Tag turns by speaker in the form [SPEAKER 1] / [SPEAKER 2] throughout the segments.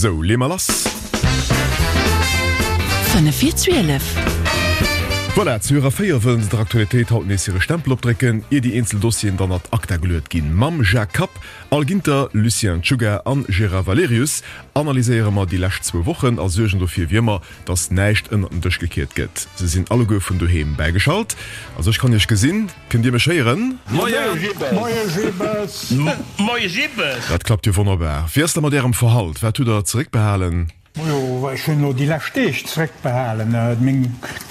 [SPEAKER 1] Sou, leeë mer lass.
[SPEAKER 2] 5 vir 12.
[SPEAKER 1] Voilà, zu hirer 4 wëllen se der Aktualitéit haut nees hire Stempel opdrécken, ier déi eenzel Dossieren dann ad acta geluet ginn. Mam Jacques Kapp, Al Ginter, Lucien Czuga an Gérard Valerius analyséiere mer déi lescht zwou Wochen a suergen dofir, wéi ëmmer, dass näischt ënnert den Dësch gekiert gëtt. Se sinn alleguer vun doheem bäigeschalt. Also ech kann iech gesinn. Kënnt Dir mech héieren?
[SPEAKER 3] Moie Jibbes!
[SPEAKER 4] Moie Jibbes!
[SPEAKER 1] Dat klappt jo wonnerbar. Wéi ass da mat Ärem Verhalt? Wat hutt Der zeréckbehalen?
[SPEAKER 3] Majo, ech hunn elo déi lescht Deeg zeréckbehalen. Meng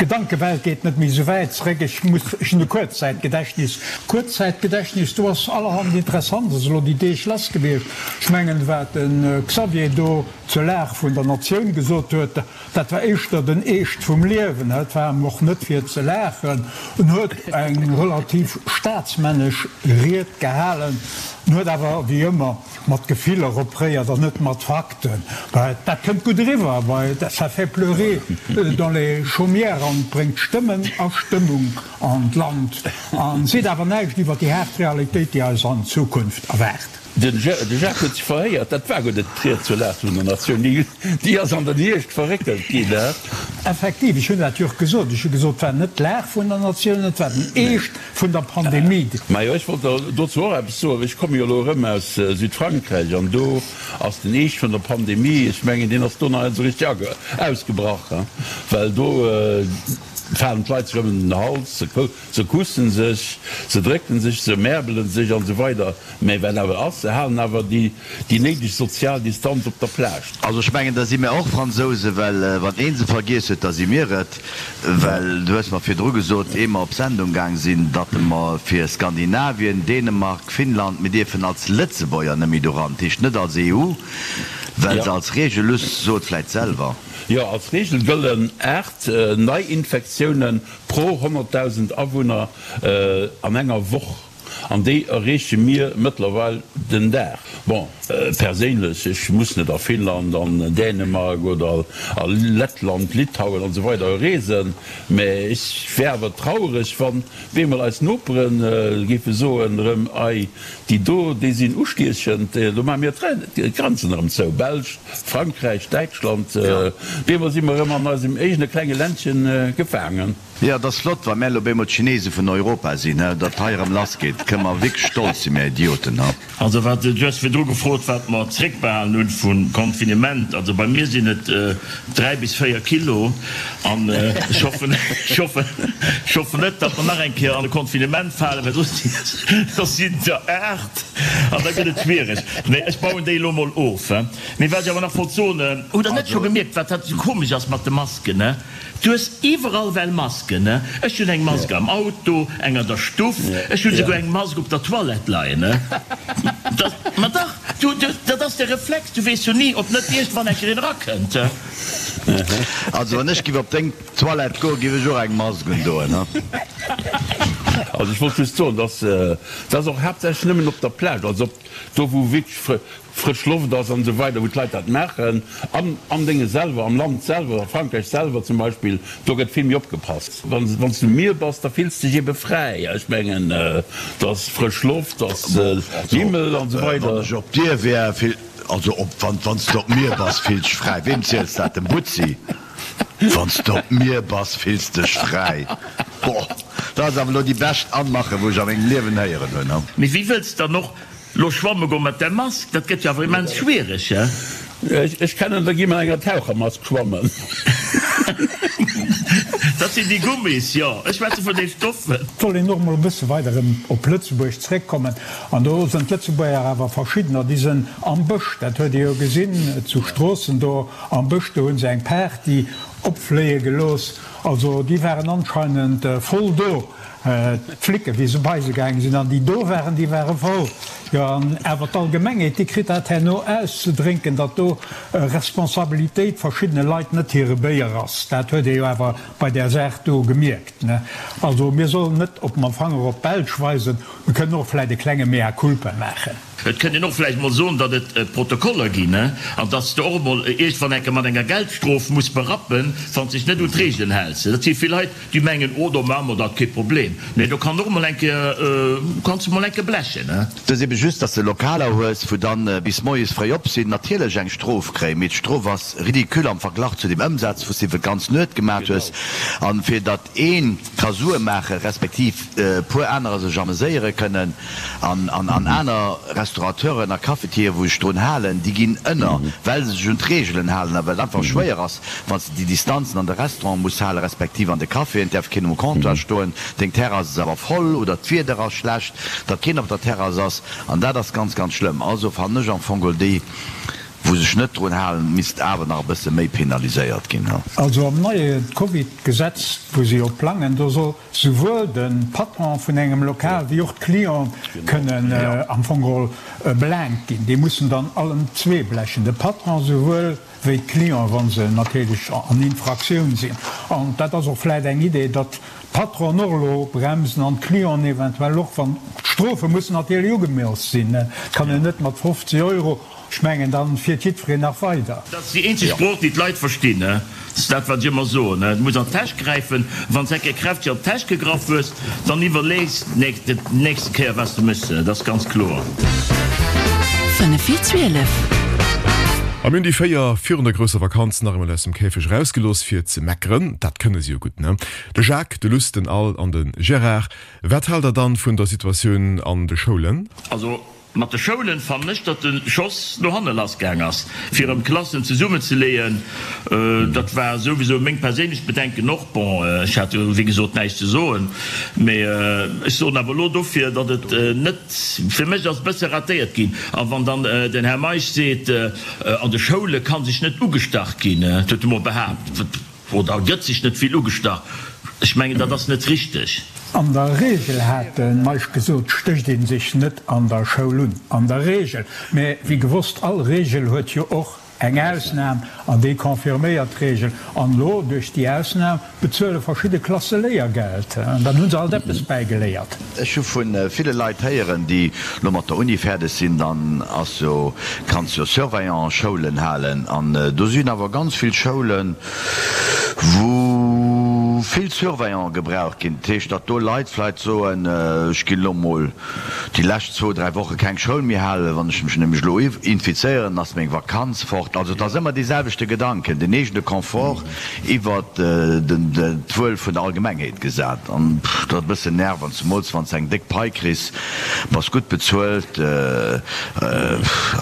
[SPEAKER 3] Gedankewelt geet net méi esou wäit zeréck. Ech muss, ech hunn e Kuerzzäitgedächtnis. Kuerzzäitgedächtnis, do ass allerhand Interessantes elo déi Deeg lass gewiescht. Ech mengen, wat de Xavier do zur Lag vun der Natioun gesot huet, Dat war éischter den Eescht vum Liewen, et war em och net fir ze laachen. En huet eng relativ staatsmännesch Ried gehalen, en huet awer wéi ëmmer mat Gefiller opréiert an net mat Fakten. Dat kënnt gutt eriwwer, well ça fait pleurer dans les chaumières an bréngt Stëmmen a Stëmmung an d'Land an seet awer näischt iwwer déi haart Realitéit, déi eis an Zukunft erwaart.
[SPEAKER 4] De Jacques huet sech verhéiert, dat war guer net d'Ried zur Lag vun der Natioun, déi ass an den Hierscht verréckelt ginn.
[SPEAKER 3] Effektiv, ech hunn dat jo och gesot. Ech hu gesot, et war net d'Lag vun der Natioun, et war den Eescht vun der Pandemie.
[SPEAKER 4] Majo, ech wollt der dozou och eppes soen. Ech komme jo elo erëm aus Südfrankräich an do ass den Eescht vun der Pandemie, ech mengen, deen ass do nach net esou richteg ausgebrach, well do falen d'Leit sech ëm den Hals, Se kussen sech, se drécken sech, se märbelen sech an esou weider Mä wat awer ass, se halen awer déi néideg sozial Distanz op der Plage.
[SPEAKER 5] Also ech mengen, da si mär och Fransousen, well wann ee se vergiess huet, da si mir et. Well du hues mer virdru gesot, ehe mer op Sendung gaang sinn, datt mer fir Skandinavien, Dänemark, Finnland, mir dierfen als Lëtzebuerger net méi doran, dat heescht net als EU, well se als Regel, luss, so et vläit selwer.
[SPEAKER 4] Jo, als Regel gëllen 8 Neiinfektiounen Pro 100.000 Awunner an enger Woch, an déi erreeche mir mëttlerweil den Dag. Bon, perséinlech, ech muss net a Finnland, an Dänemark oder a Lettland, Litauen an esou weider reesen, mä ech wär awer traureg, wann bemol eis Nopere géife soen erëm, Ei, déi do, déi sinn ustiechend, do maache mir d'Grenzen erëm zou. Belsch, Frankräich, Däitschland, bemol si mer erëm an eisem eegene klenge Ländchen gefaangen.
[SPEAKER 5] Jo, et ass flott, wa mär elo bemol d'Chinese vun Europa sinn, he, datt hei erëm lass geet, kënne mer wierklech stolz sinn, mär Idioten, he.
[SPEAKER 6] Also wat, du hues virdru gefrot, wat mer zréckbehalen hunn vum Confinement. Also bei mir sinn et 3 bis 4 Kilo an ech hoffen, ech hoffen, ech hoffen net, datt mer nach eng Kéier an e Confinement falen, well soss, soss sinn et der 8 an da gëtt et schwiereg. Nee, ech bauen déi elo mol of. Mee wat ech awer nach wollt soen, hutt Der net scho gemierkt, wat dat esou komesch ass mat de Masken, ne? Du hues iwwerall well Masken, ne? Ech hunn eng Mask am Auto, eng an der Stuff, ech hunn esouguer eng Mask op der Toilette leien, ne? Dat, ma dach, du, du, dat ass de Reflex, du weess jo ni, ob net iergendwann eng Kéier een erakënnt.
[SPEAKER 5] Also wann ech giff op deng Toilette goen, giff ech och eng Mask undoen, ne?
[SPEAKER 4] Also ech wollt just soen, dass dat ass och haaptsächlech nëmmen op der Plage, also op do wou wierklech frësch Loft ass an esou weider, wou d'Leit dat maachen. An am Dénge selwer, am Land selwer, a Frankräich selwer zum Beispill, do gëtt vill méi opgepasst. Wann s du um Mier bass, da fills de dech ebe fräi. Ech mengen, do ass frësch Loft, do ass Himmel an esou weider.
[SPEAKER 5] Wann ech op dir wär, also op, wann s du op mir bass, fills dech fräi. Weem ziels dat? Dem Butzi? Wann s du op mir bass, fills dech fräi. Boah, dat ass awer elo déi bescht Anmache wou ech a mengem Liewen héieren hunn.
[SPEAKER 6] Mee wéi wëlls dann och Lo schwamme goen mat der Mask, dat gëtt jo awer immens schwiereg, he?
[SPEAKER 4] Ech kennen der gi mat enger Tauchermask schwammen.
[SPEAKER 6] Dat sinn déi Gummis, jo. Ech schwätze vun de Stoffen.
[SPEAKER 3] Et soll een och emol e bësse weider erëm op Lëtzebuerg zréckkommen. An do sënn d'Lëtzebuerger awer verschiddener, déi sënn am Bësch, dat huet ee jo gesinn zu Stroossen do am Bësch, do hu se eng Party opfléie gelooss. Also déi waren anscheinend voll do. D'Flicken, wéi se bei se gaange sinn, an déi do waren, déi ware voll. Jo, an awer d'Allgemengheet, déi kritt dat herno auszedrénken, datt do Responsabilitéit verschiddene Leit net hire Béier ass. Dat huet ee jo awer bei där Saach do gemierkt, ne? Also mir sollen net op mam Fanger op d'Belsch weisen, mir kënnen och vläicht e klenge Mea culpa maachen.
[SPEAKER 6] Et kënnt een och vläicht emol soen, datt et Protokoller ginn, an datt s de och emol iergendwann eng Kéier mat enger Geldstrof muss berappen, wann s dech net un d'Reegelen häls. Dat si vill Leit, déi mengen, Oh, do maache mer dat, kee Problem. Nee, do kann och emol eng Kéier, kanns de mol eng Kéier blechen.
[SPEAKER 5] Et ass ebe just, datt s de Lokaler hues, wou dann bis moies fréi op sinn, natierlech eng Strof kréien, mee d'Strof ass ridicule am Verglach zu dem Ëmsaz, wou s de iwwer d'ganz Nuet gemaat hues. An fir datt ee ka Sue maache respektiv e puer anerer sech ameséiere kënnen an an aner Restaurateuren a Cafetieren, wou sech drun halen, déi ginn ënner, well se sech un d'Reegelen halen a well et einfach schwéier ass, wann s de déi Distanzen an de Restaurante muss halen, respektiv an de Caféen, et däerf keen um Comptoir stoen, deng Terrass ass awer voll oder d'Wieder ass schlecht, datt keen op der Terrass ass an dat ass ganz, ganz schlëmm. Also fannen ech am Fong geholl déi. Wou sech net drun halen, misst awer nach e bësse méi penaliséiert ginn.
[SPEAKER 3] Also am neie Covid-Gesetz, wou se jo plangen, do soll souwuel de Patron vun engem Lokal wéi och d'Clienten kënnen am Fong geholl belaangt ginn. Déi mussen dann allen zwee blechen, de Patron souwuel wéi d'Clienten, wa se natierlech an Infraktioun sinn. An dat ass och vläicht eng Idee, datt d'Patronen och elo bremsen an d'Clienten eventuell och, wann d'Strofe mussen natierlech ugemooss sinn. Et kann een net mat 50 Euro Ech mengen, dann fiert jiddwereen nach weider.
[SPEAKER 6] Dat ass déi eenzeg Sprooch, déi d'Leit verstinn. Dat ass dat, wat ech ëmmer soen. Du muss an d'Täsch gräifen. Wann s de eng Kéier kräfteg an d'Täsch gegraff hues, dann iwwerlees de déi nächste Kéier, wat s de méchs. Dat ass ganz kloer.
[SPEAKER 2] 5 vir 12.
[SPEAKER 1] A mir hunn déi 4 virun der grousser Vakanz nach eemol aus dem Käfeg erausgelooss fir ze meckeren. Dat kënne se jo gutt, ne? De Jacques, de Luss, den Al an de Gérard. Wat haalt der dann vun der Situatioun an de Schoulen?
[SPEAKER 6] Also Mat de Schoulen fannen ech, datt de Schoss no hanne lass gaang ass, fir erëm Klassen zesummenzeleeën. Dat war souwisou meng perséinlech Bedenken och. Bon, ech hat jo wéi gesot näischt ze soen, mee ech soen awer elo dofir, datt et net, fir mech ass e bësse ratéiert ginn. A wann dann den Här Meisch seet, an de Schoule ka sech net ugestach ginn, dat huet e mol behaapt, Oder gëtt sech net vill ugestach? Ech mengen, dat ass net richteg.
[SPEAKER 3] An der Regel, hat de Meisch gesot, stécht ee sech net an der Schoul un. An der Regel. Mä wéi gewosst, all Regel huet jo och eng Ausnam, an déi confirméiert d'Regel. An elo, duerch déi Ausnam, bezuele verschidde Klasse Léiergeld. An dann hu se alt eppes bäigeléiert.
[SPEAKER 5] Ech hu vu ville Leit héieren, déi lo mat der Uni fäerdeg sinn, dann ass jo, kanns jo Surveillant-Schoulen halen an do sinn awer ganz vill Schoulen, wou vill Surveillanten gebraucht ginn. Dat heescht, datt do Leit vläicht soen, ech ginn elo mol déi lescht zwou, dräi Woche keng Schoul méi halen, wann ech mech nämlech elo infizéieren, ass meng Vakanz fort. Also et ass ëmmer dee selwechte Gedanken, den eegene Confort iwwert d'Wuel vun der Allgemengheet gesat. An dat ass e bëssen nervend, zemools wann s de eng déck Pai kriss, bass gutt bezuelt,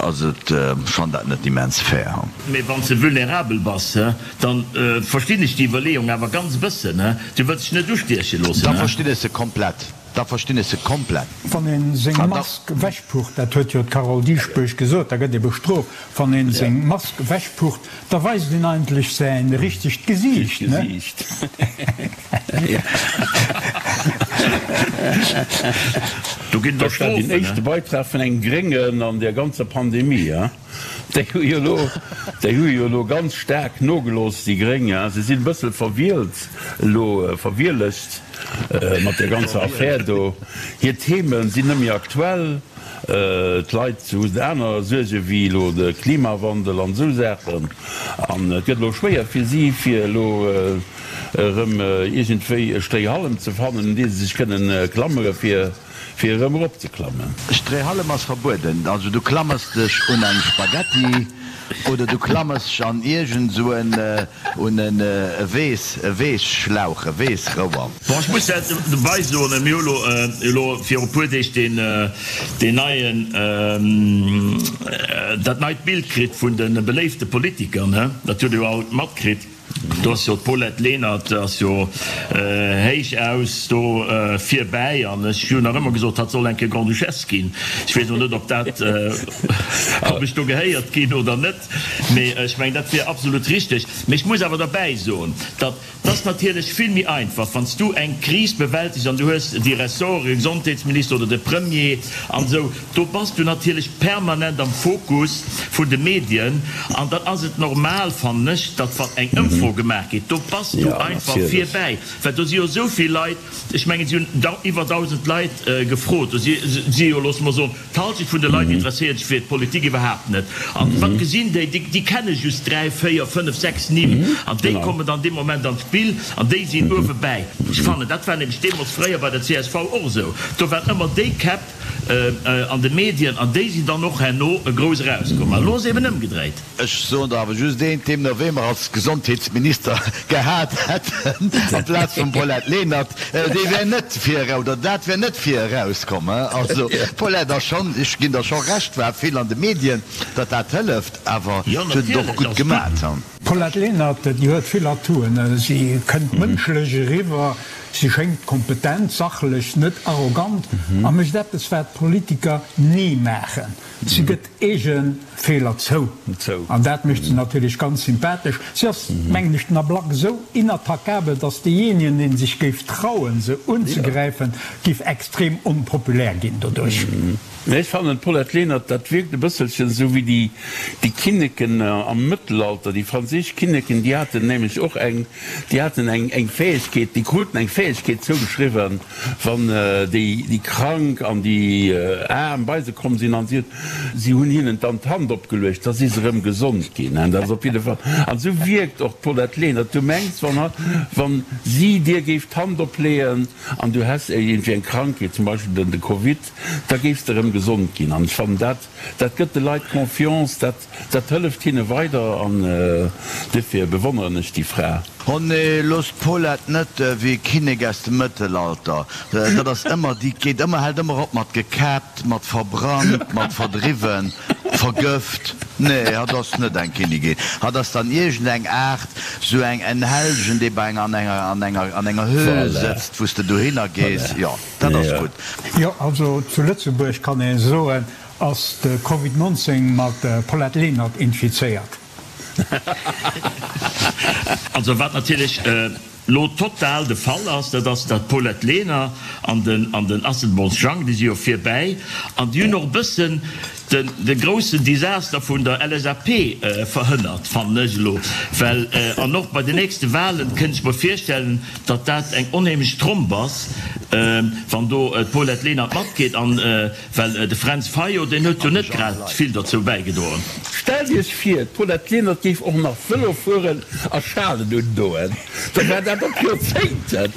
[SPEAKER 5] ass et, ech fannen dat net immens fair.
[SPEAKER 6] Mee wann s de vulnerabel bass, dann verstinn ech déi Iwwerleeung awer ganz e bëssen. Du wëlls dech net ustieche loossen.
[SPEAKER 5] Da verstinn ech se komplett. Da verstinn ech se komplett.
[SPEAKER 3] Wann een seng Mask wechpucht, dat huet jo d'Carole Dieschbourg gesot, da gëtt ee bestrooft. Wann een seng Mask wechpucht, da weist een eigentlech säin richtegt Gesiicht, ne?
[SPEAKER 6] Do ginn et
[SPEAKER 4] Dat war deen
[SPEAKER 6] Strofen,
[SPEAKER 4] éischte Beitrag vun engem Gréngen an där ganzer Pandemie, hein? Déi hu jo elo, déi hu jo elo ganz staark nogelooss, déi Gréng, hein. Se sinn e bëssel verwielt elo, verwielegt mat där ganzer Affär do. Hir Theme sinn net méi aktuell. D'Leit hu aner Suerge wéi elo de Klimawandel an esou Saachen. An et gëtt elo schwéier fir si, fir elo erëm iergendwéi e Stréihallem ze fannen, un dee se sech kënnen klammere fir, Fir erëm erop ze klammen.
[SPEAKER 5] Stréihallem ass verbueden. Also du klammers dech un eng Spaghetti oder du klammers dech an iergend sou en un en e Weess e Weesschlauch, e Weessrouer.
[SPEAKER 6] Bon, ech muss dat dobei soen, mir hu lo elo viru puer Deeg deen deen neien dat neit Bild kritt vun de beléifte Politiker, ne? Dat hutt Der jo all matkritt. Do ass jo d'Paulette Lenert ass jo héich aus do virbäi an ech hunn nach ëmmer gesot, hatt soll eng Kéier Grande-Duchesse ginn. Ech weess elo net, ob dat, ob ech do gehéiert ginn oder net, mee ech mengen, dat wier absolut richteg. Mee ech muss awer derbäi soen, datt et ass natierlech vill méi einfach, wann s du eng Kris bewältegs an du hues déi Ressorte, Gesondheetsminister oder de Premier an esou, Do bass du natierlech permanent am Fokus vun de Medien an dann ass et normal, fannen ech, datt wann eng Ëmfro. Ëmfro gemaach geet, do bass du einfach vir bäi, well do si jo esou vill Leit, ech mengen, si hunn iwwer 1.000 Leit gefrot, do si jo, loosse mer soen, d'Halschent vun de Leit interesséiert sech fir d'Politik iwwerhaapt net. An wat gesinn déi? Déi kenne just 3, 4, 5, 6 Nimm an déi kommen dann dee Moment an d'Spill an déi sinn uewe bäi. Ech fannen, dat war nämlech deemools fréier bei der csv och esou, do waren ëmmer déi Käpp an de Medien an déi sinn dann och herno grouss erauskomm. An elo ass et eben ëmgedréit.
[SPEAKER 5] Ech soen der awer just eent, deemno wee mer als Gesondheetsminister gehat hätten amplaz vum Paulette Lenert, dee wär net vir erau, oder dat wär net vir erauskomm. Also d'Paulette ass schonn, ech ginn der scho Recht, war vill an de Medien, datt dat hëlleft, awer
[SPEAKER 6] Jo,
[SPEAKER 5] se huet et och
[SPEAKER 6] natierlech,
[SPEAKER 5] gutt
[SPEAKER 6] ass gutt.
[SPEAKER 5] gemat.
[SPEAKER 3] D'Paulette Lenert, déi huet vill Atouen. Si kënnt mënschlech eriwwer, si schéngt kompetent, sachlech, net arrogant a mécht eppes, wat Politiker ni maachen, si gëtt eege Feeler zou. An dat mécht se natierlech ganz sympathesch. Si ass, mengen ech, den Ablack esou inattackabel, datt deejéinegen, dee sech géif trauen, se unzegräifen, géif extrem onpopulär ginn doduerch.
[SPEAKER 4] Mä ech fannen, d'Paulette Lenert, dat wierkt e bësselchen esou wéi déi, déi Kinneken am Mëttelalter, déi franséisch Kinneken, déi haten nämlech och eng, déi haten eng, eng Fäegkeet, déi kruten eng Fäegkeet zougeschriwwen, wann déi, déi Krank an déi Aarm bei se komm sinn an si huet, si hunn hinnen dann d'Hand opgeluecht, da si se erëm gesond ginn. Dat ass op jidde Fall, an esou wierkt och d'Paulette Lenert. Du mengs, wann, wann si dir géif d'Hand opleeën an du häss iergendwéi eng Krankheet, zum Beispill den, de Covid, da géifs de erëm gesond ginn. An ech fannen, dat, dat gëtt de Leit Confiance, dat, dat hëlleft hinne weider an duerfir bewonneren ech déi Fra.
[SPEAKER 5] Oh nee, looss d'Paulette net wéi e Kinnek aus dem Mëttelalter. Dat ass ëmmer, déi geet ëmmer, hält ëmmer op mat gekäppt, mat verbrannt, mat verdriwwen, vergëft. Nee, hatt ass net eng Kinnigin. Hatt ass dann iergend eng Aart, sou eng, en Hellgen, dee bei enger, an enger, an enger, an enger Höhl
[SPEAKER 4] Voilà.
[SPEAKER 5] sëtzt, wou s de dohinner gees.
[SPEAKER 4] Voilà.
[SPEAKER 5] Jo. Dat ass gutt.
[SPEAKER 3] Jo, also zu Lëtzebuerg kann ee soen, ass de Covid 19 mat Paulette Lenert infizéiert.
[SPEAKER 6] Also wat natierlech elo total de Fall ass, dat ass, datt d'Paulette Lenert an den an den Asselborns Jang, déi si jo virbäi an déi hunn och e bëssen den de groussen Desaster vun der LSAP verhënnert, fannen ech elo, well an och bei den nächste Wahlen kënnt ech mer virstellen, datt dat eng onheemlech Tromp ass, wann do d'Paulette Lenert matgeet, an well de Fränz Fayot, deen huet jo net grad vill derzou bäigedroen.
[SPEAKER 4] Stellt Iech vir, d'Paulette Lenert géif och nach Vëlo fueren a Schalen undoen, da wär dat op Joerzéngten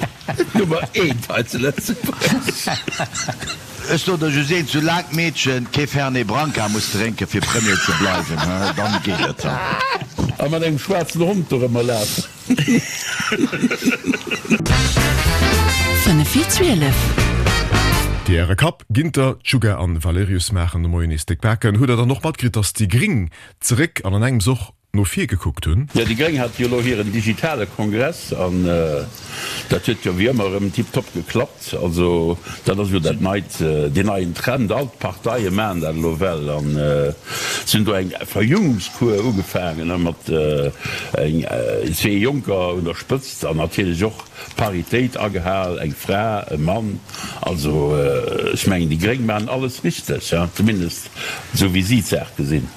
[SPEAKER 4] d'Nummer eent hei zu Lëtzebuerg.
[SPEAKER 5] Ech soen der just eent, Soulaang d'Meedchen kee Fernet Branca muss drénken fir Premier ze bleiwen, dann geet et.
[SPEAKER 4] A mat engem schwaarzen Hond dorëmmer lafen.
[SPEAKER 2] 5 vir 12.
[SPEAKER 1] Déi Äre Kapp, Ginter, Csuga an Valerius maachen de Moien nees déck Baken. Hutt der dann och matkritt, dass déi Gring zeréck an an engems och no vir gekuckt hunn?
[SPEAKER 4] Jo, déi Gréng hate jo elo hiren digitale Kongress an dat huet jo wéi ëmmer erëm tiptop geklappt. Also dat ass jo dat neit, deen neien Trend, all d'Parteie maachen dat elo well an se hunn do eng Verjüngungskur ugefaangen mat eng zwee Jonker un der Spëtzt an natierlech och Paritéit agehal, eng Fra, e Mann. Also ech mengen déi Gréng maachen alles richteg, zumindest esou wéi si d'Saach gesinn.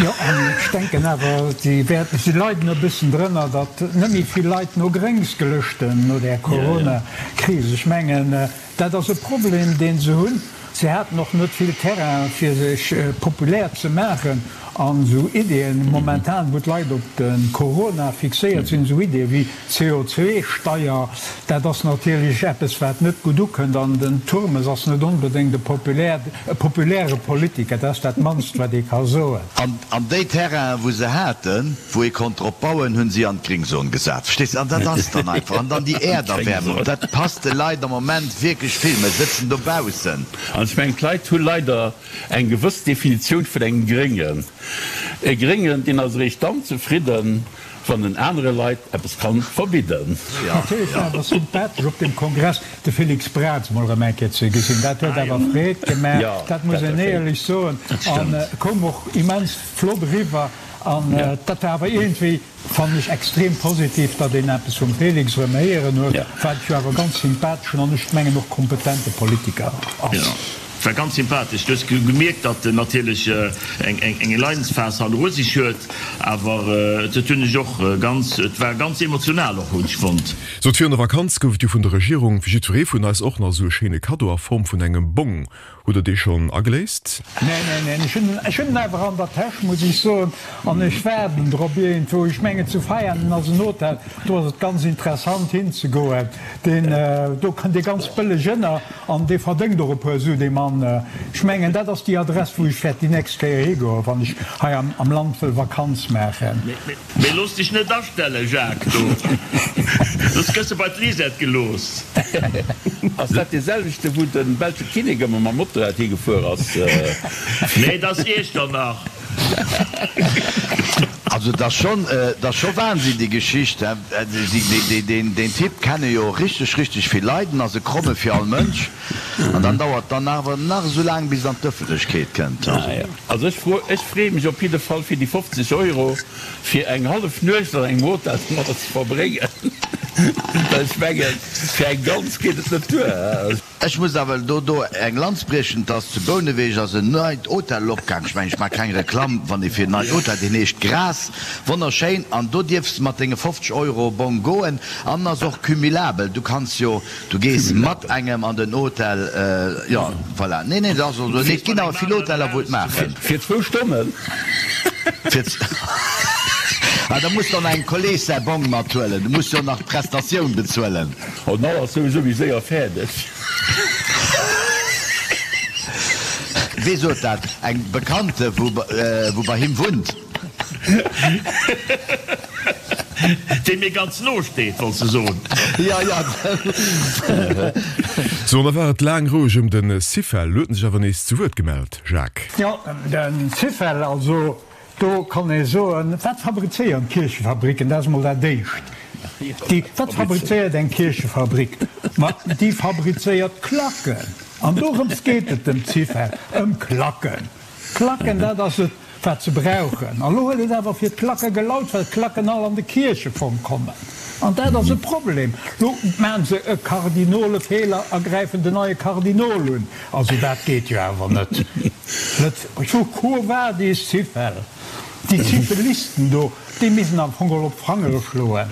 [SPEAKER 3] Jo, an ech denken awer, si wäerten, si leiden e bëssen drënner, datt net méi vill Leit no Gréngs gelëschten no där Corona-Kris. Ech mengen, dat ass e Problem, dee se hunn. Si haten och net vill Terrain, fir sech populär ze maachen. An esou Ideeën, momentan, wou d'Leit op de Corona fixéiert sinn, esou Ideeë wéi CO2-Steier, dat ass natierlech eppes, wat net gutt ukënnt. An den Turmes ass net onbedéngt e populär, e populäre Politiker, dat ass dat mannst, wat ee ka soen.
[SPEAKER 5] An déi Terrainen, wou se haten, wou ee konnt drop bauen, hu si an d'Gringzon gesat. Verstees de? An dat ass dann einfach. An dann déi Äerderwärmung, dat passt de Leit am Moment wierklech vill. Mer sëtzen dobaussen.
[SPEAKER 4] An ech mengen, d'Leit hu leider eng gewëss Definitioun vun engem Gréngen. E Gréngen, deen ass eréischt dann zefridden, wann en anere Leit eppes kann verbidden.
[SPEAKER 3] Natierlech war awer sympathesch op deem Kongress de Félix Braz mol erëm eng Kéier ze gesinn. Dat huet awer Freed gemaach, dat muss een éierlech soen, an koum och immens flott eriwwer. An dat war awer iergendwéi, fannen ech, extrem positiv, datt een eppes vum Félix erëm héieren huet, wat jo awer e ganz sympatheschen an ech mengen och kompetente Politiker ass.
[SPEAKER 6] War ganz sympathesch. Du hues gemierkt, datt en natierlech eng Leidensphas hanneru sech huet, awer dat hunn ech och ganz, et war ganz emotional och, hunn ech fonnt.
[SPEAKER 1] Sot, virun der Vakanz gouf et jo vun der Regierung fir jiddweree vun eis och nach esou e schéine Kaddo a Form vun engem Bong. Hutt der dee schonn ageléist?
[SPEAKER 3] Neen, neen, neen, ech hunn, ech hunn en awer an der Täsch, muss ech soen, an ech waarden drop iergendwou. Ech mengen, zu Veianen ass en Hotel, do ass et ganz interessant hinzegoen. Deen, do kënnt ee ganz bëlleg ënner an dee verdéngt och e puer Su, dee Mann. Ech mengen, dat ass déi Adress, wou ech wäert déi nächst Kéier higoen, wann ech hei am Land wëll Vakanz maachen.
[SPEAKER 6] Mee looss dech net astellen, Jacques, do, soss gëss de bei d'Lisette gelooss.
[SPEAKER 4] Ass dat dee selwechte wou de belsche Kinnek ëmmer mam Motorrad higefuer ass?
[SPEAKER 6] Nee, dat ass Iechternach.
[SPEAKER 5] Also et ass schonn, et ass scho Wahnsinn déi Geschicht. Deen Typ kenne jo richteg, richteg vill Leit, en ass e Kromme fir all Mënsch. An dann dauert dann awer nach esou laang bis et an d'Ëffentlechkeet kënnt.
[SPEAKER 4] Also ech fro, ech freeë mech op jidde Fall fir déi 50 Euro fir eng hallef Nuecht an engem Hotel domadder ze verbréngen, well ech mengen, fir eng ganz geet et net duer.
[SPEAKER 5] Ech muss awer do do eng Lanz briechen, et ass zu Bouneweg ass en neit Hotel opgaang, ech mengen ech maache keng Reklamm, wann ee fir en neit Hotel, deen heescht Grass, wonnerschéin, an do dierfs de mat denge 50 Euro Bong goen an en ass och cumulabel, du kanns jo, du gees mat engem an den Hotel, jo voilà, nee nee dat ass och esou, nee et ginn awer vill Hoteller wou et maachen.
[SPEAKER 4] Fir zwou Stonnen?
[SPEAKER 5] Fir ah da muss de och nach engem Kolleg säi Bong mathuelen, du muss jo nach d'Prestatioun bezuelen.
[SPEAKER 4] Oh den Al ass souwisou méi séier fäerdeg.
[SPEAKER 5] Wee sot dat? Eng Bekannte wou bei him wunnt.
[SPEAKER 6] Déi mir ganz no steet, wollts de soen?
[SPEAKER 5] Jo, jo.
[SPEAKER 1] Sou, an da war et laang roueg ëm de Syfel. Lo huet en sech awer nees zu Wuert gemellt, Jacques.
[SPEAKER 3] Jo, de Syfel, also Do kann ee soen, wat fabrizéieren d'Kierchefabricken? Dat ass emol dat Éischt. Déi, wat fabrizéiert eng Kierchefabrik? Ma déi fabrizéiert Klacken. An dorëms geet et dem Zyfel, ëm Klacken. Klacken, dat ass et, wat se brauchen. An elo huet et awer fir d'Klacke gelaut, well d'Klacken all an de Kierchefong kommen. An dat ass e Problem. Lo maachen se e Kardinolefeeler a gräifen den neie Kardinol un. Also dat geet jo awer net. Net vu Quo vadis Syfel? Déi Syfelisten do, déi missten am Fong geholl op d'Fangere schloen.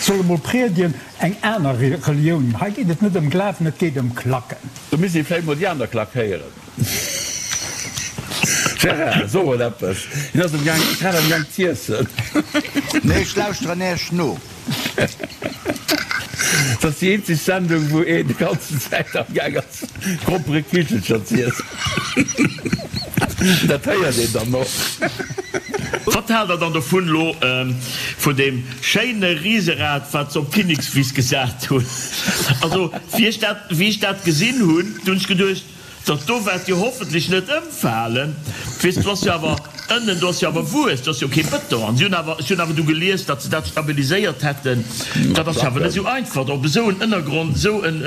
[SPEAKER 3] Solle mol priedien eng aner Relioun. Hei geet et net ëm Glawen, et geet ëm Klacken.
[SPEAKER 4] Do misst ee vläicht mol déi aner Klack héieren. Gérard, so mol eppes. Hien ass am Gaang, grad am Gaang z'iessen.
[SPEAKER 5] Nee, ech lauschteren Äech no.
[SPEAKER 4] Dat ass déi eenzeg Sendung, wou een déi ganzen Zäit am Gaang ass, Gromperekichelcher z'iessen. Dat héiert een dann och.
[SPEAKER 6] Wat haalt der dann dovun elo vun deem schéine Riserad wat se op d'Kinnekswiss gesat hunn? Also wéi ech dat wéi ech dat gesinn hunn, du hunn ech geduecht, Dat do waert jo hoffentlech net ëmfalen. Weess, do ass jo awer ënnen, do ass jo awer Wues, do ass jo kee Bëton. An si hunn awer, ech hunn awer du gelies, datt se dat stabiliséiert hätten. Dat ass jo awer net esou einfach, op esou en Ënnergrond esou en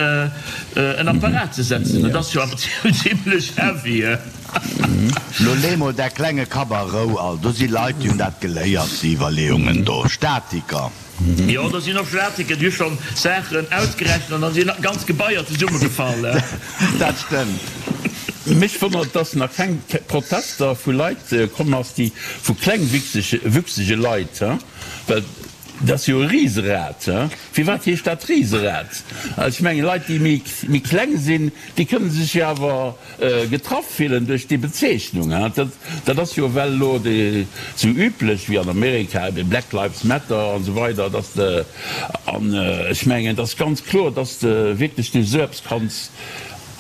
[SPEAKER 6] en Apparat ze setzen. Dat ass jo awer zimlech heavy.
[SPEAKER 5] Lo lee mol däi klenge Kapp a Rou, all. Do si Leit, déi hunn dat geléiert, déi Iwwerleeungen do. Statiker.
[SPEAKER 6] Jo, do sinn och Statiker, déi hu schonn Saachen ausgerechent an da sinn ganz Gebaier zesummegefall.
[SPEAKER 5] Dat stëmmt.
[SPEAKER 4] Mech wonnert, dass nach keng Protester vu Leit komm ass, déi vu klengwüchsege Leit, well dat ass jo e Riserad. Firwat heescht dat Riserad? Ech mengen, Leit, déi méi kleng sinn, déi kënne sech jo awer Getraff fillen duerch déi Bezeechnung. Dat ass jo ewell elo sou üblech wéi an Amerika, ebe Black Lives Matter an esou weider, dass de, an ech mengen, et ass ganz kloer, dass de wierklech duerch esou eppes kanns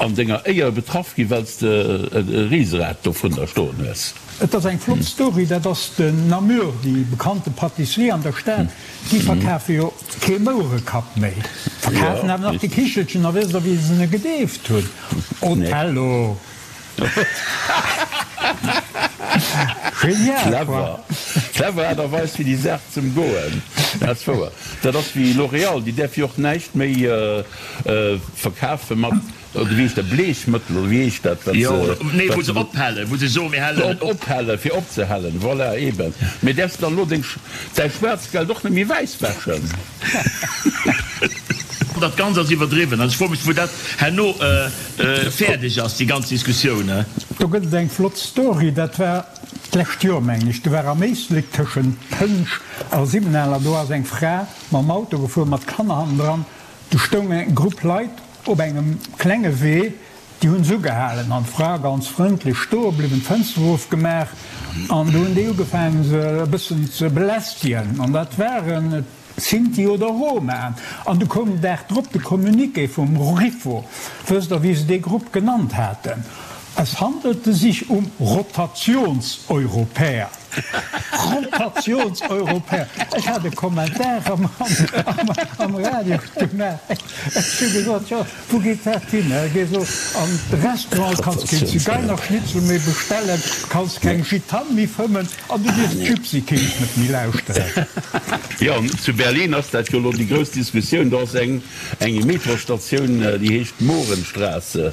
[SPEAKER 4] an denger Éier betraff ginn, well s de e Riserad dovunner stoen hues.
[SPEAKER 3] Et ass eng flott Story, dat ass den Namur, déi bekannte Pâtisserie an der Stad. Déi verkafe jo kee Mouerekapp méi, verkafen awer nach de Kichelchen. A wësst Der, wéi se en gedeeft hunn? Othello! Genial, quoi!
[SPEAKER 4] Clever Aart a Weis, fir déi Saach z'ëmgoen. Dat ass wouer. Dat ass wéi L'Oréal, déi däerf jo och näischt méi verkafe mat. Oder wéi heescht dat, Bleechmëttel, oder wéi heescht dat, wat
[SPEAKER 6] se. Nee, wou se ophellen, wou se soen, mir hellen et op.
[SPEAKER 4] Ophellen, fir opzehellen, voilà, eben. Mee däerfs de dann elo deng, däi Schwaarzgeld och net méi wäiss wäschen?
[SPEAKER 6] Dat Ganzt ass iwwerdriwwen. Also ech froe mech, wou dat herno fäerdeg ass, déi ganz Diskussioun.
[SPEAKER 3] Do gëtt et eng flott Story, dat war d'lescht Joer, mengen ech, do war am Éislek tëschent Pënsch a Siwwenaler, do ass eng Fra mam Auto gefuer mat Kanner hannendran, do stoung eng Grupp Leit op engem klenge Wee, déi hunn se ugehalen an d'Fra ganz frëndlech stoe bliwwen, d'Fënster erofgemaach an do hunn déi ugefaangen se e bëssen ze belästegen an dat waren Sinti oder Roma. An du koum den Dag drop de Communiqué vum RIFO. Wësst Der, wéi se dee Grupp genannt haten? Es handelte sich um Rotationseuropäer. Rotationseuropäer! Ech hat e Kommentar am Radio gemaach. Ech hu gesot, Jo, wou geet dat hin? Gees elo an de Restaurant, kanns keen Zigeinerschnitzel méi bestellen, kanns keng Gitane méi fëmmen an du dierfs d'Gypsy Kings net méi lauschteren.
[SPEAKER 4] Jo, zu Berlin ass dat jo elo déi grouss Diskussioun. Do ass eng eng Metrostatioun, déi heescht Mohrenstraße.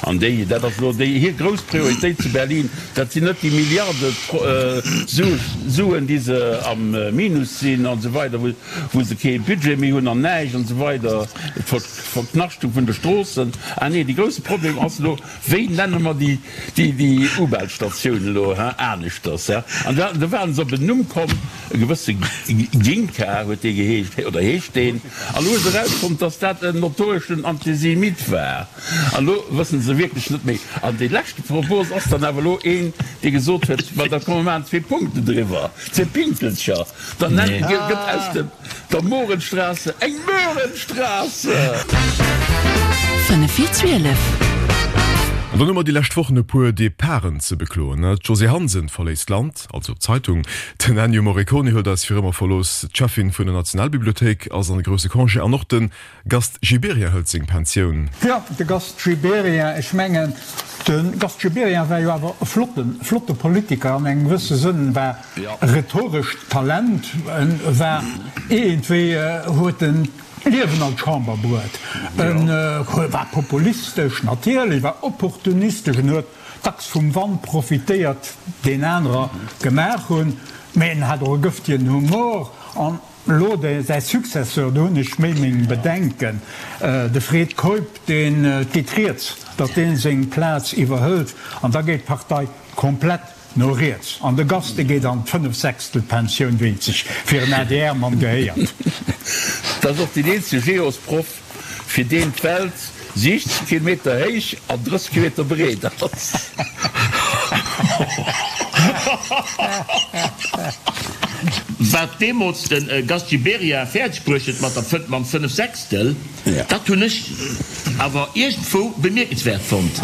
[SPEAKER 4] An déi, dat ass elo déi hir grouss Prioritéit zu Berlin. Dat sinn net déi Milliarde Suen, déi se am Minus sinn an esou weider, wou se kee Budget méi hunn an näischt an esou weider, d'Verknaschtung vun de Stroossen. Ah nee, de grousse Problem ass elo, Wéi nenne mer déi U-Bahn-Statioun elo aneschters? An do waren se op en Numm komm, e gewësse Ginka huet dee geheescht, oder heescht deen. An elo hu se erausfonnt, datt dat en notoreschen Antisemit war. An elo wësse se wierklech net méi. An dee leschte Propos ass dann awer elo een, dee gesot huet, Ma da komm mer maachen zwee Punkten driwwer, zwee Pinkelcher. Dann nennt, gëtt aus dem, der Mohrenstraße eng Möhrenstraße!
[SPEAKER 2] 5 vir 12.
[SPEAKER 1] An dann hu mer déi lescht Wochen e puer Departen ze bekloen. D'Josée Hansen verléisst d'Land, also d'Zeitung. Den Ennio Morricone huet eis fir ëmmer verlooss. D'Cheffin vun der Nationalbibliothéik ass an de grousse Congé an och de Gast Gibéryen hëlt seng Pensioun.
[SPEAKER 3] Jo, de Gast Gibéryen, ech mengen, de Gast Gibéryen war jo awer e flotten, flotte Politiker an engem gewësse Sënn, war e rhetorescht Talent, en war iergendwéi, huet en d'Liewen an d'Chamber bruet, en war populistesch natierlech, war opportunistesch, en huet dacks vum Wand profitéiert, deen anerer gemaach hunn, mä en hat och e gëftegen Humor an. Elo de säi Successeur, do hunn ech méi meng Bedenken, de Fred Keup, deen, et geet rieds, datt dee seng Plaz iwwerhëlt an da geet d'Partei komplett no riets an de Gast, dee geet an d'Fënnefsechstelpensioun, wéi et sech fir en ADR-Mann gehéiert.
[SPEAKER 4] Dat ass och deen eenzege Geosproff, fir deen d'Welt 60 Kilometer héich an 30 Kilometer breet ass.
[SPEAKER 6] Wat deemools de Gast Gibéryen fäerdeg bruecht huet mat der, mam Fënnefsechstel, dat hunn ech awer iergendwou bemierkenswäert fonnt.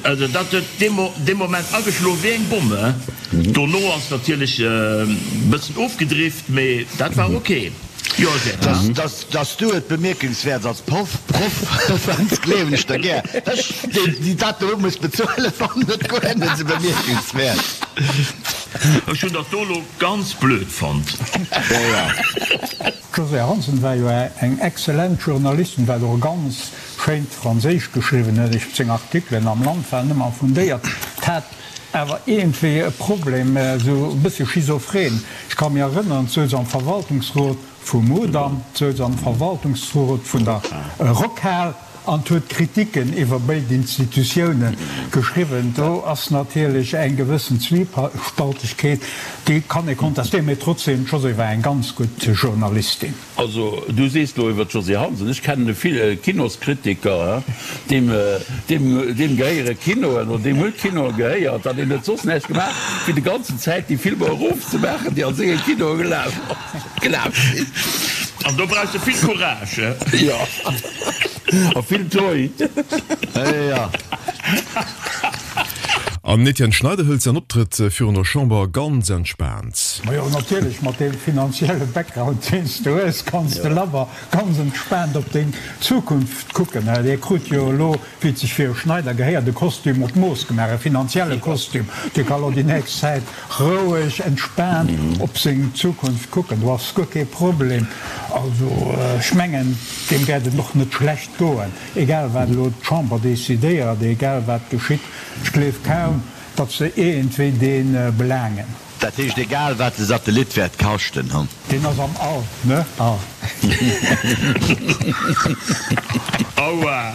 [SPEAKER 6] Also dat huet dee Moment ageschloen wéi eng Bomm. Dono ass natierlech e bëssen ofgedrift, mee dat war ok. Jo, Gérard.
[SPEAKER 5] Dass du et bemierkenswäert als Proff fënns, gleewen ech der gär. Ech, déi dat do muss bezuelen, fannen et guer net esou bemierkenswäert.
[SPEAKER 6] Ech hunn dat do elo ganz blöd fonnt.
[SPEAKER 5] Jo, jo.
[SPEAKER 3] D'Josée Hansen war jo eng exzellent Journalistin, wat och e ganz schéint Franséisch geschriwwen huet. Ech, seng Artikelen am Land waren ëmmer fundéiert. D'hat awer iergendwéi e Problem, esou e bësse schizophren. Ech ka mir erënneren, d'souz am Verwaltungsrot vum Mudam, d'souz am Verwaltungsrot vun der Rockhal an huet Kritiken iwwer béid Institutioune geschriwwen. Do ass natierlech eng gewëssen Zwiespaltegkeet, déi kann ee kontestéieren, mee trotzdeem, d'Josée war eng ganz gutt Journalistin.
[SPEAKER 4] Also, du sees lo iwwer d'Josée Hansen, ech kennen e vill Kinoskritiker, deem, deem, deem gehéiere Kinoen oder deem huet Kinoe gehéiert an deen huet soss näischt gemaach, wéi de ganzen Zäit déi Filmer erofzemaachen, déi a senge Kinoe gelaf, gelaf sinn.
[SPEAKER 6] An do brauchs de vill Courage.
[SPEAKER 4] Jo, a vill Toi.
[SPEAKER 5] Jo.
[SPEAKER 1] An den Etienne Schneider hëlt säin Optrëtt virun der Chamber ganz entspaant.
[SPEAKER 3] Majo natierlech, mat deem finanzielle Background deen s de hues, kanns de labber ganz entspaant op deng Zukunft kucken. Dir krut jo elo, wéi et sech fir e Schneider gehéiert, e Kostüm op d'Mooss gemaach, e finanzielle Kostüm. Dee ka lo déi nächst Zäit roueg, entspaant op seng Zukunft kucken. Do ass guer kee Problem. Also ech mengen, deem wäert et och net schlecht goen. Egal wat elo d'Chamber decidéiert, egal wat geschitt, ech gleef kaum, datt se iergendwéi dee belaangen.
[SPEAKER 5] Dat heescht, egal wat de Satellit wäert kaschten, hu.
[SPEAKER 3] Deen ass am All, ne?
[SPEAKER 6] Aua!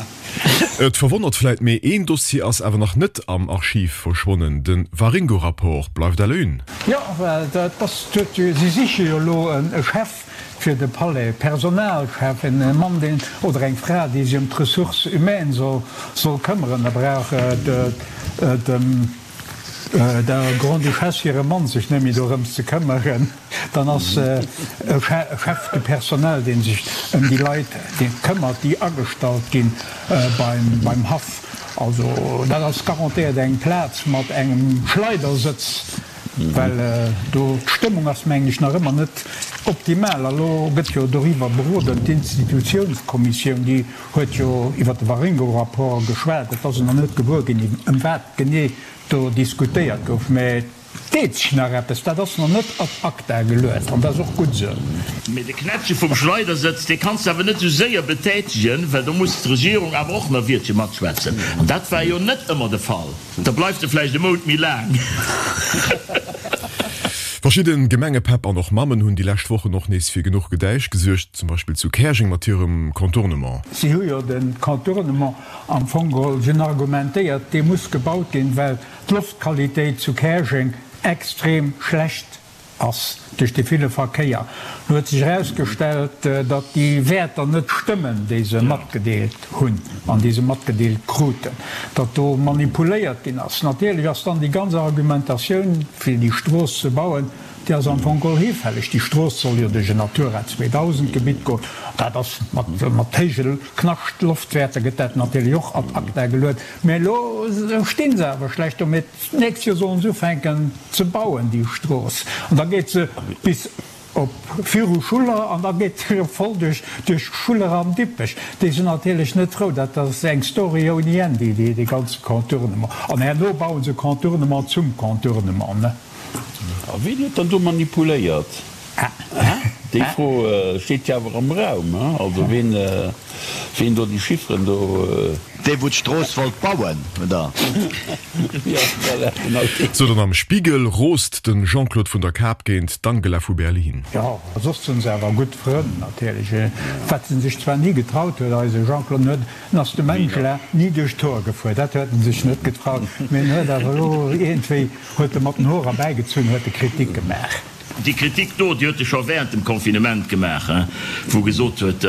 [SPEAKER 1] Et verwonnert vläit, mee een Dossier ass awer nach net am Archiv verschwonnen, de Waringo-Rapport bleift à la une.
[SPEAKER 3] Jo, well dat ass, si siche jo elo e Chef fir de Palais, Personalchef, en Mann, deen, oder eng Fra, déi sech ëm d'Ressources humaines soll këmmeren. Da brauch dem der Grande-Duchesse hire Mann sech net méi dorëms ze këmmeren. Dann ass e Chef de personnel, dee sech ëm déi Leit këmmert, déi agestallt gi beim Haff. Also dat ass garantéiert eng Plaz mat engem Schleidersëtz, well do d'Stëmmung ass, mengen ech, nach ëmmer net optimal. A lo gëtt jo doriwwer beroden, d'Institutiounskommissioun, déi huet jo iwwer de Waringo-Rapport geschwat. Et ass een nach net gewuer ginn, ëm wat genee do diskutéiert gouf, mä Deet sech nach eppes? Dat ass nach net ad acta geluet an dat ass och gutt esou.
[SPEAKER 6] Mee de Knäppche vum Schleidersëtz, dee kanns de awer net esou séier betätegen, well do muss d'Regierung awer och nach e Wiertche matschwätzen. An dat war jo net ëmmer de Fall. Da bleift e vläicht e Mount méi laang.
[SPEAKER 1] Verschidde Gemengepäpp an och Mammen hunn déi lescht Wochen och nees fir genuch Gedäisch gesuergt, zum Beispill zu Käerjeng mat hirem Contournement.
[SPEAKER 3] Si hu jo de Contournement am Fong geholl, si hunn argumentéiert, dee muss gebaut ginn, well d'Loftqualitéit zu Käerjeng extrem schlecht ass duerch de ville Verkéier. Lo huet sech erausgestellt, datt déi Wäerter net stëmmen, déi se matgedeelt hunn an déi se matgedeelt kruten, datt do manipuléiert ginn ass. Natierlech ass dann déi ganz Argumentatioun, fir déi Strooss ze bauen, déi ass am Fong geholl hifälleg. Déi Strooss soll jo duerch en Natura 2000 Gebitt goen. Dat ass mat héije Knaschtloftwäerter gëtt dat natierlech och ad acta geluet. Mä elo sti se awer schlecht do. Mä d'nächst Joer sollen se ufänken ze bauen, déi Strooss. An da geet se bis op viru Schuller an da geet se erëm voll duerch duerch Schuller an Dippech. Déi sinn natierlech net frou. Dat ass eng Story ouni Enn, déi dee ganze Contournement. An herno bauen se Contournement zum Contournement, ne?
[SPEAKER 4] A wien huet dann do manipuléiert? Déi Fro steet jo awer am Raum. Also ween, ween do déi Chifferen do.
[SPEAKER 5] Dee wou d'Strooss wollt bauen, oder?
[SPEAKER 4] Jo, voilà, genau deen.
[SPEAKER 1] Sou, dann am Spiegel roost de Jean-Claude vun der Kap géint d'Angela vu Berlin.
[SPEAKER 3] Jo, soss sinn se awer gutt Frënn natierlech. Wat en sech zwar ni getraut huet, eise Jean-Claude, en huet, en ass dem Angela ni duerch d'Hoer gefuer, dat huet en sech net getraut, mee en huet awer elo iergendwéi, huet e mat den Hoer erbäigezunn, huet e Kritik gemaach.
[SPEAKER 6] Déi Kritik do, déi huet e scho während dem Confinement gemaach, wou e gesot huet,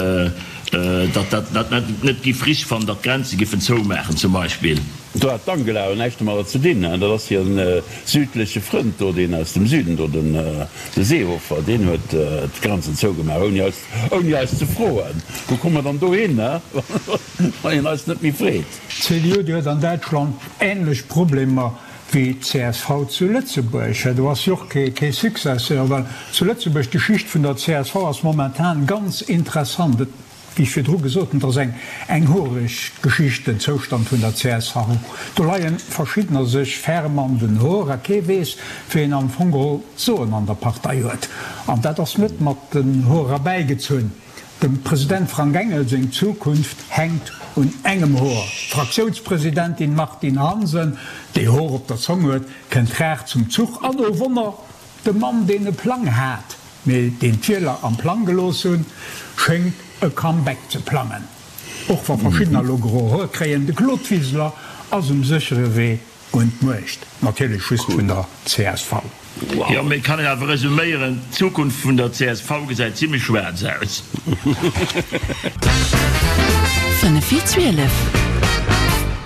[SPEAKER 6] datt dat net giff richteg fannen, datt d'Grenze giffen zoumaachen zum Beispill.
[SPEAKER 4] Do hat d'Angela jo näischt domadder ze dinn, dat ass hire südleche Frënd do, deen aus dem Süden do, de Seehofer, deen huet d'Grenzen zougemaach, ouni eis, ouni eis ze froen. Wou komme mer dann do hin, wann een eis net méi freet?
[SPEAKER 3] D'CDU, déi huet an Däitschland änlech Problemer wéi d'CSV zu Lëtzebuerg. Do ass jo och kee Successeur, well zu Lëtzebuerg, d'Geschicht vun der csv ass momentan ganz interessant. Et, wéi ech virdru gesot hunn, et ass eng eng horeg Geschicht, den Zoustand vun der csv. Do leie verschiddener sech ferm an den Hoer a kee weess, wien am Fong geholl d'Soen an der Partei huet. An dat ass net mat den Hoer erbäigezunn. Dem President Frank Engel seng Zukunft hänkt un engem Hoer. D'Fraktiounspresidentin Martine Hansen, déi Hoer op der Zong huet, kënnt rar zum Zuch. An, oh Wonner, de Mann, deen e Plang hat, mee deen d'Wieler am Plang gelooss hunn, schéngt e Comeback ze plangen. Och wa verschiddener elo gro Hoer kréien, de Claude Wiseler ass um séchere Wee Un d'Muecht, natierlech just vun der csv.
[SPEAKER 6] Jo, mee et kann een awer resuméieren, d'Zukunft vun der csv gesäit zimlech schwaarz aus.
[SPEAKER 2] 5 vir 12.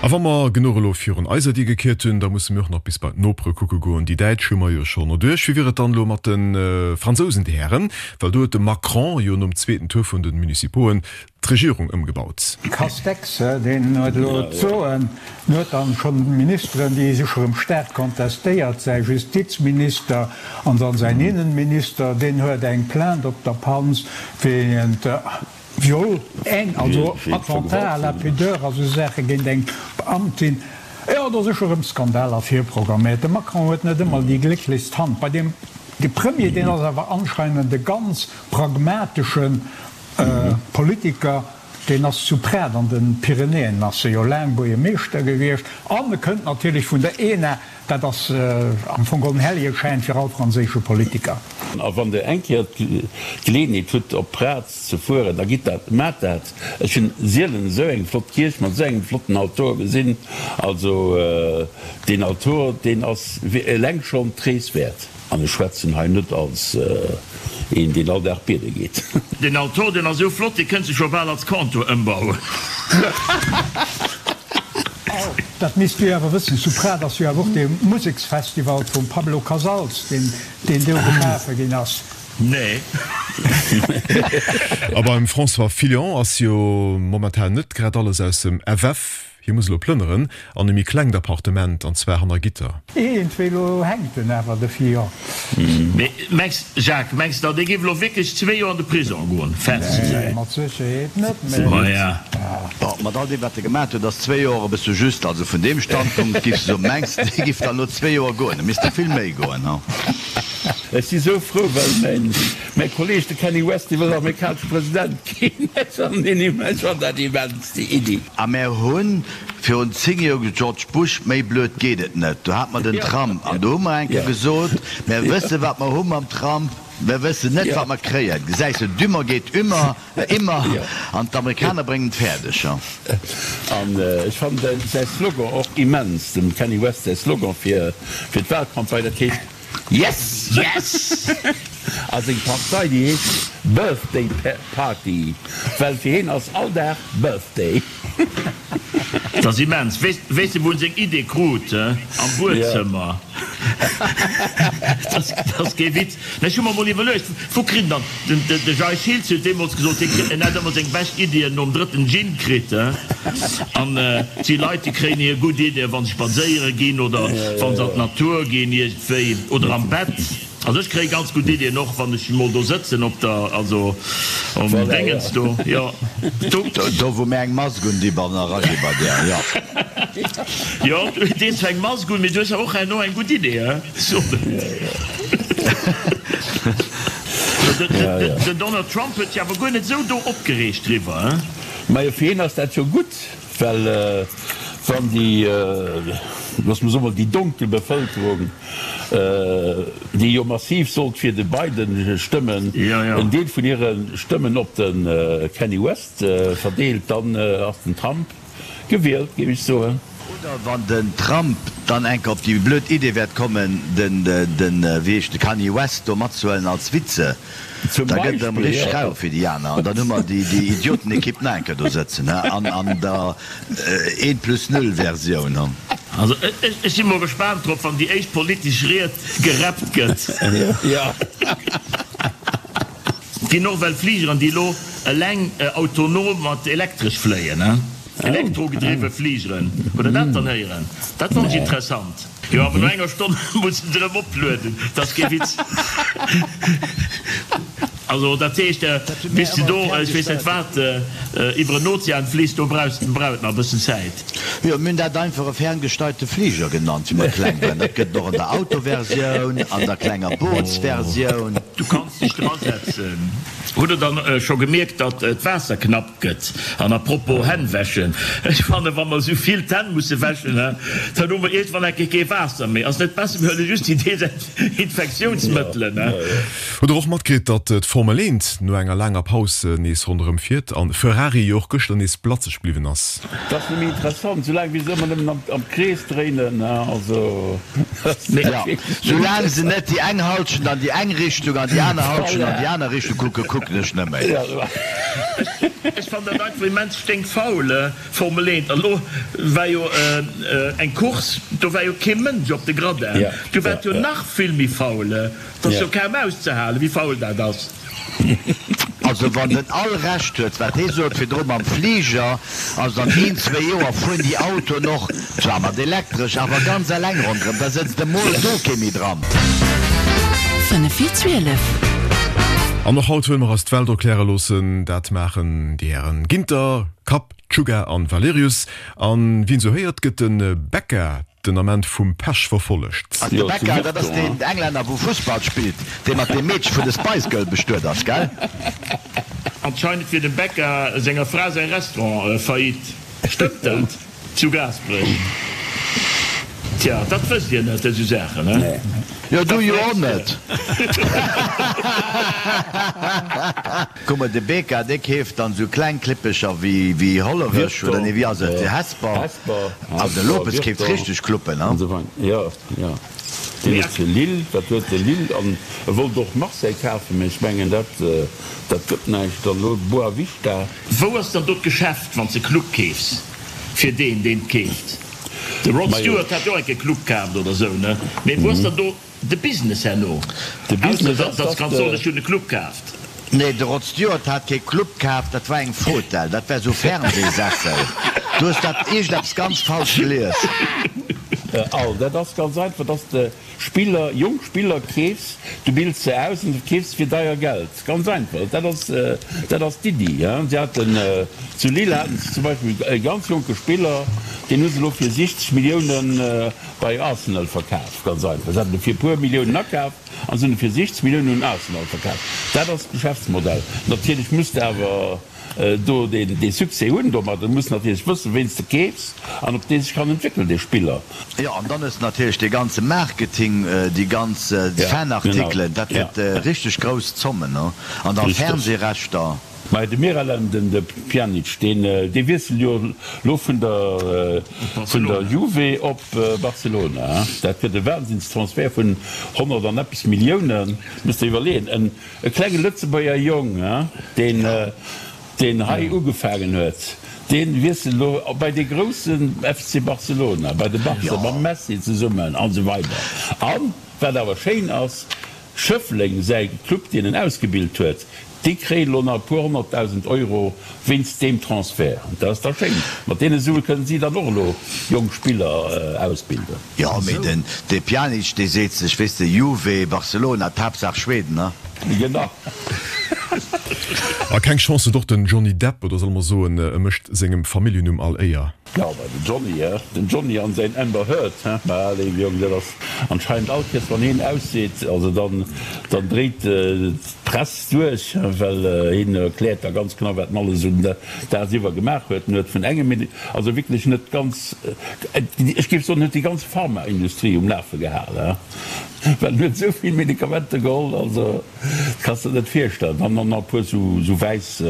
[SPEAKER 1] A wa mer genuch elo virun eiser Dier gekiert hunn, da musse mir och nach bis bei d'Nopere kucke goen. Déi Däitsch hu mer jo schonn erduerch. Wéi wier et dann elo mat de Fransousen, Dir Hären? Well do huet de Macron jo nom zweeten Tour vun de Municipoen d'Regierung ëmgebaut.
[SPEAKER 3] Castex, deen huet elo d'Soen, en huet dann schonn Ministeren, déi sech erëm staark kontestéiert, säi Justizminister an dann säin Innenminister, deen huet eng Plainte op der Panz wéint Viol, also Attentat à la pudeur a sou Saache géint eng Beamtin. Jo, do si scho rëm Skandaler virprogramméiert. De Macron huet net ëmmer déi glécklechst Hand bei deem. De Premier, deen ass awer anscheinend e ganz pragmateschen. Politiker. Deen ass zu Prades an den Pyrenäen ass e jo laang Buergermeeschter gewiescht an e kënnt natierlech vun der ENA. Dat ass am Fong geholl en Hellegeschäin fir all franséische Politiker.
[SPEAKER 4] A wann Der eng Kéier d'Geleeënheet hutt op Prades ze fueren, da gitt dat, maacht dat. Ech hunn sielen esou eng flott Kierch mat esou engem flotten Altor gesinn. Also deen Altor, deen ass eleng schonn d'Rees wäert. An ech schwätzen hei net als een, deen all Dag biede geet.
[SPEAKER 6] Deen Altor, deen ass esou flott, dee kënns de scho bal als Comptoir ëmbauen.
[SPEAKER 3] Dat misst du jo awer wëssen, zu Prades ass jo awer och dee Museksfestival vum Pablo Casals, deen deen do geschafe ginn ass.
[SPEAKER 6] Nee.
[SPEAKER 1] A beim François Fillon ass jo momentan net grad alles aus dem FF. Hie muss elo plënneren an e méi klengt Appartement, an zwar hanner Gitter.
[SPEAKER 3] Iergendwéi elo hänkt en awer, de Fillon.
[SPEAKER 6] Mee mengs, Jacques, mengs de, dee géif elo wierklech zwee Joer an de Prisong goen? Fest?
[SPEAKER 3] Nee, mat Sécherheet net, mee.
[SPEAKER 6] Maja.
[SPEAKER 5] Bon, mat all deem, wat e gemaat huet, ass zwee Joer e bësse just. Also vun deem Standpunkt giff se soen, mengs de, dee giff dann elo zwee Joer goen? E misst der vill méi goen, ha?
[SPEAKER 4] Ech si sou frou, well mäin Mäi Kolleg, de Kanye West, dee wëll amerikanesche President ginn. Ech fannen dat immens, déi Iddi.
[SPEAKER 5] A mär hu virun 10 Joer gesot, George Bush, méi blöd geet et net. Do hate mer den Trump. An do hu mer eng Kéier gesot, mär wësse wat mer hu mam Trump, mär wëssen net wat mer kréien. Gesäis de, dümmer geet ümmer, immer, an d'Amerikaner bréngen et fäerdeg.
[SPEAKER 4] An ech fannen säi Slogan och immens, dem Kanye West säi Slogan fir d'Wahlcampagne, dat heescht, Yes!
[SPEAKER 6] Yes!
[SPEAKER 4] A seng Partei, déi heescht Birthday Party, well fir hien ass all Dag Birthday.
[SPEAKER 6] Dat ass immens. Weess de wou en seng Idee krut? Am Buedzëmmer. Dat ass kee Witz. Mä ech hu mer mol iwwerluecht, wou kritt en dann, de Jay Schiltz huet deemools gesot, hie kritt, en hätt ëmmer seng bescht Iddien nom drëtten Gin kritt. An et si Leit, déi kréien hir gutt Iddien, wa se spadséiere ginn oder wa se an d'Natur ginn iergendwéi oder am Bett. Also ech kréie ganz gutt Iddien och, wann ech mol do sëtzen op der, also um Déngens do, jo.
[SPEAKER 5] Do. Do wou mir eng Mask un di ban eragi bei där, jo.
[SPEAKER 6] Jo, du dees zwar eng Mask un, mee du hues awer och herno eng gutt Idee, he? Den Donald Trump huet sech awer guer net esou do opgereegt driwwer, he?
[SPEAKER 4] Majo, fir hien ass dat jo gutt, well wann déi, loosse mer soen, déi donkel Bevëlkerung, déi jo massiv sollt fir de Biden stëmmen, en Deel vun hire Stëmmen op de Kanye West verdeelt, dann ass den Trump Gewielt, géif ech soen.
[SPEAKER 5] Oder wann den Trump dann eng Kéier op déi blöd Idee wäert kommen, den, den, wéi heescht de, Kanye West do matzehuelen als Vize,
[SPEAKER 4] Zum
[SPEAKER 5] da gëtt et erëm
[SPEAKER 4] Beispill,
[SPEAKER 5] richteg
[SPEAKER 4] jo.
[SPEAKER 5] rau fir déi aner. An dann hu mer déi, déi Idiotenekipp nach eng Kéier do sëtzen, he, an, an der eent plus null Versioun, he.
[SPEAKER 6] Also ech, ech si mol gespaant drop, wann déi éischt politesch Ried gerappt gëtt.
[SPEAKER 4] Jo.
[SPEAKER 6] Et ginn och well Fligeren, déi elo eleng autonom mat elektresch fléien, elektrogedriwwe Fligeren. Hutt Der dat dann héieren? Dat fannt ech interessant. Jo, awer no enger Stonn mussen se erëm oplueden. Dat ass kee Witz. Also dat heescht, bis de do, ech weess net wat, iwwer en Ozean fliss, do brauchs brauch et nach e bëssen Zäit.
[SPEAKER 5] Jo, mir hunn dat einfach e ferngesteierte Fliger genannt, wéi mer kleng waren. Dat gëtt et och an der Autoversioun, an der klenger Bootsversioun.
[SPEAKER 6] Du kanns dech drasetzen. Hutt der dann scho gemierkt, datt d'Waasser knapp gëtt? An à propos Hänn wäschen, ech fannen, wa mer esou vill d'Hänn musse wäschen, dann hu mer iergendwann enke kee Waasser méi. Ass net besser, mir huele just déi Desinfektiounsmëttelen?
[SPEAKER 1] Hutt der och matkritt, datt d'Formel 1 no enger laanger Paus nees ronderëm fiert an Ferrari jo och gëschter nees blatzeg bliwwen ass?
[SPEAKER 4] Dat ass nëmme interessant, soulaang wéi se ëmmer nëmmen am Krees dréinen, also.
[SPEAKER 5] Jo, soulaang se net déi eng Halschent an déi eng Richtung an déi aner Halschent an déi aner Richtung kucken, kucken ech net méi.
[SPEAKER 6] Ech fannen dat einfach immens sténkfaul, Formel 1. An elo war jo eng Course, do war jo kee Mënsch op de Gradin, do war et jo nach vill méi faul. Et ass jo kaum auszehalen, wéi faul dat ass.
[SPEAKER 5] Also wann den Al Recht huet wat hee sot virdru mam Fliger, also an een, zwéi Joer fueren déi Autoen och, zwar mat elektresch, awer ganz eleng ronderëm, da sëtzt emol do kee méi dran.
[SPEAKER 2] 5 vir 12.
[SPEAKER 1] An och haut wëlle mer eis d'Welt erkläre loossen. Dat maachen déi Hären Ginter, Kapp, Czuga an Valerius. An wien esou héiert, gëtt de Becca den Ament vum Pech verfollegt.
[SPEAKER 5] Ass de Becca, dat ass deen Englänner wou Fussball spillt, dee mat deem Meedche vun de Spice Girl bestuet ass, gell?
[SPEAKER 6] Anscheinend wier dem Becca senger Fra säi Restaurant faillite. Stëmmt dat? Zu Gaasperech? Tja, dat wësst Dir net, esou Saachen, he?
[SPEAKER 5] Jo, du jo och net. Kuck mol, de Beka, dee keeft dann esou kleng Klippecher wéi Hollerech, oder nee, wéi ass et, Hesper. Also de Lopez keeft richteg Cluppen,
[SPEAKER 4] he? Jo, jo. Deen huet fir Lille, dat huet de Lille an e wollt och Marseille kafen, mä ech mengen dat dat gëtt näischt. Dann elo Boavista.
[SPEAKER 6] Wou ass dann do d'Geschäft wann s de Club keefs fir deen deen keeft? De Rod Stewart hat jo och enke Club kaaft oder sou ne? Mee wou ass dann do de Business herno?
[SPEAKER 4] De
[SPEAKER 6] Ausser
[SPEAKER 4] Business ass,
[SPEAKER 6] datt s
[SPEAKER 4] dass
[SPEAKER 6] kanns
[SPEAKER 4] de.
[SPEAKER 6] soen ech hunn e Club kaaft.
[SPEAKER 5] Nee, de Rod Stewart hat kee Club kaf, dat war eng Fotell, dat war sou Fernsehsessel. Du hues dat iergendeppes ganz falsch gelies.
[SPEAKER 4] Al, dat ass ganz einfach, dass de Spiller, jonk Spiller keefs, du bilds se aus an du verkeefs se fir deier Geld. Ganz einfach, dat ass, dat ass d'Iddi. Si haten, zu Lille haten se zum Beispill e ganz jonke Spiller, deen hu se elo fir 60 Milliounen bei Arsenal verkaf. Ganz einfach, se haten e fir e puer Milliounen akaf. An se hunn e fir 60 Milliounen un Arsenal verkaf. Dat ass d'Geschäftsmodell. Natierlech muss de awer do dee Succès hunn domat. Du muss natierlech wëssen, ween s de keefs an ob dee sech kann entwéckelen, dee Spiller.
[SPEAKER 5] Jo, an dann hues de natierlech dee ganze Marketing, déi ganz Fanartikelen, dat gëtt richteg grouss Zommen, an da Fernsehrechter.
[SPEAKER 4] Mä de Miralem, den de Pjanic, deen dee wiesselt jo lo vun der vun der Juve op Barcelona. Dat gëtt e Wahnsinnstransfert vun 100 an eppes Milliounen. Musst der iwwerleeën, en e klenge Lëtzebuerger Jong, deen deen hei ugefaangen huet, dee wiesselt elo bei dee groussen FC Barcelona, bei de Barca, mam Messi zesummen an esou weider. An wat awer schéin ass, Schëffleng, säi Club deen en ausgebilt huet, déi kréien elo nach e puer 100.000 Euro wéinst deem Transfert. Dat ass da schéin. Mat deene Sue kënnen si dann och elo jonk Spiller ausbilden.
[SPEAKER 5] Jo, mee den de Pjanic, dee seet sech, weess de, Juve, Barcelona, d'Haaptsaach Schweden, ne?
[SPEAKER 4] Genau.
[SPEAKER 1] A keng Chance huet och den Johnny Depp, oder solle mer soen, e mécht sengem Familljennumm all Éier.
[SPEAKER 4] Jo, bei den Johnny, he? Den Johnny an säin Amber Heard, he? Mä léiwe Jong, dat ass anscheinend all Kéiers wann heen ausseet, also dann, dann dréit d'Press duerch, well heen erkläert da ganz genau wat en alles un dagsiwwer gemaach huet. En huet vun engem Medi, also wierklech net ganz, ech géif soen, en huet déi ganz Pharmaindustrie um Lafe gehal, he? Well en huet esou vill Medikamenter geholl, also. Kanns der net virstellen. Dann nach e puer sou wäiss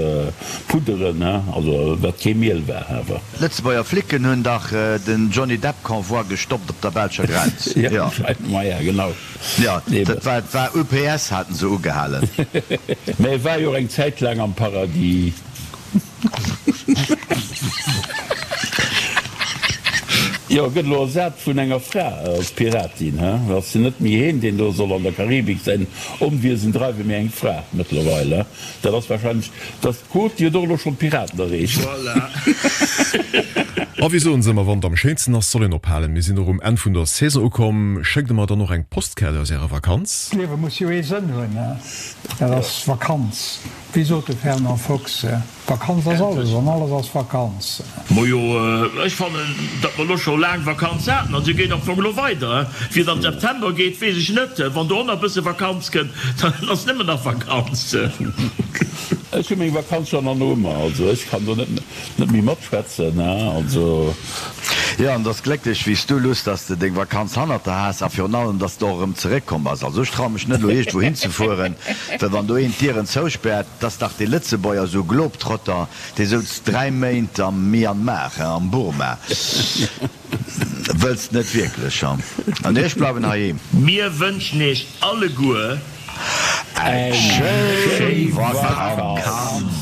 [SPEAKER 4] Pudderen, he, also wat kee Miel war awer.
[SPEAKER 5] Lëtzebuerger Flicken hunn dach den Johnny Depp Convoi gestoppt op der belscher Grenz.
[SPEAKER 4] Jo, maja genau.
[SPEAKER 5] Jo, dat war war UPS haten se ugehalen.
[SPEAKER 4] Mä e war jo och eng Zäit laang am Paradis. Jo, gëtt elo ersat vun enger Fra als Piratin, he? Ass jo net méi heen, deen do soll an der Karibik säin Onwiesen dreiwen, mee eng Fra mëttlerweil, he? Dat ass wahrscheinlech, dass d'Quot, déi huet och elo schonn d'Piraten erreecht.
[SPEAKER 6] Voilà.
[SPEAKER 1] A wéi soen se ëmmer, wann et am schéinsten ass, soll een ophalen. Mir sinn och um Enn vun der Saison ukomm. Schéckt der mer dann och eng Postkaart aus ärer Vakanz?
[SPEAKER 3] D'Liewe muss jo ee Sënn hunn, he? Dat ass Vakanz. Wéi sot de Fernand Fox, Vakanz ass alles an alles ass Vakanz.
[SPEAKER 6] Majo, ech fannen, datt mer elo scho laang Vakanz haten an se geet am Fong elo weider. Wéi et am September geet, weess ech net. Wann do och nach e bësse Vakanz kënnt, dann ass nëmmen nach Vakanz.
[SPEAKER 4] Ech hu meng Vakanz schonn an Noumer, also ech kann do net méi matschwätzen, also.
[SPEAKER 5] Jo, an et ass glécklech wéi s du, Luss, dass de deng Vakanz hannert der has a virun allem, dass de och erëm zeréckkomm bass. Also ech traue mech net elo iergendwou hinzefueren, well wann do een d'Dieren zouspäert, 't ass dach dee Lëtzebuerger, esou e Globetrotter, dee souz 3 Méint am Myanmar, am Burma. Wëlls net wierklech, ha? Nee, ech bleiwen heiheem.
[SPEAKER 6] Mir wënschen iech alleguer
[SPEAKER 5] eng schéi Vakanz!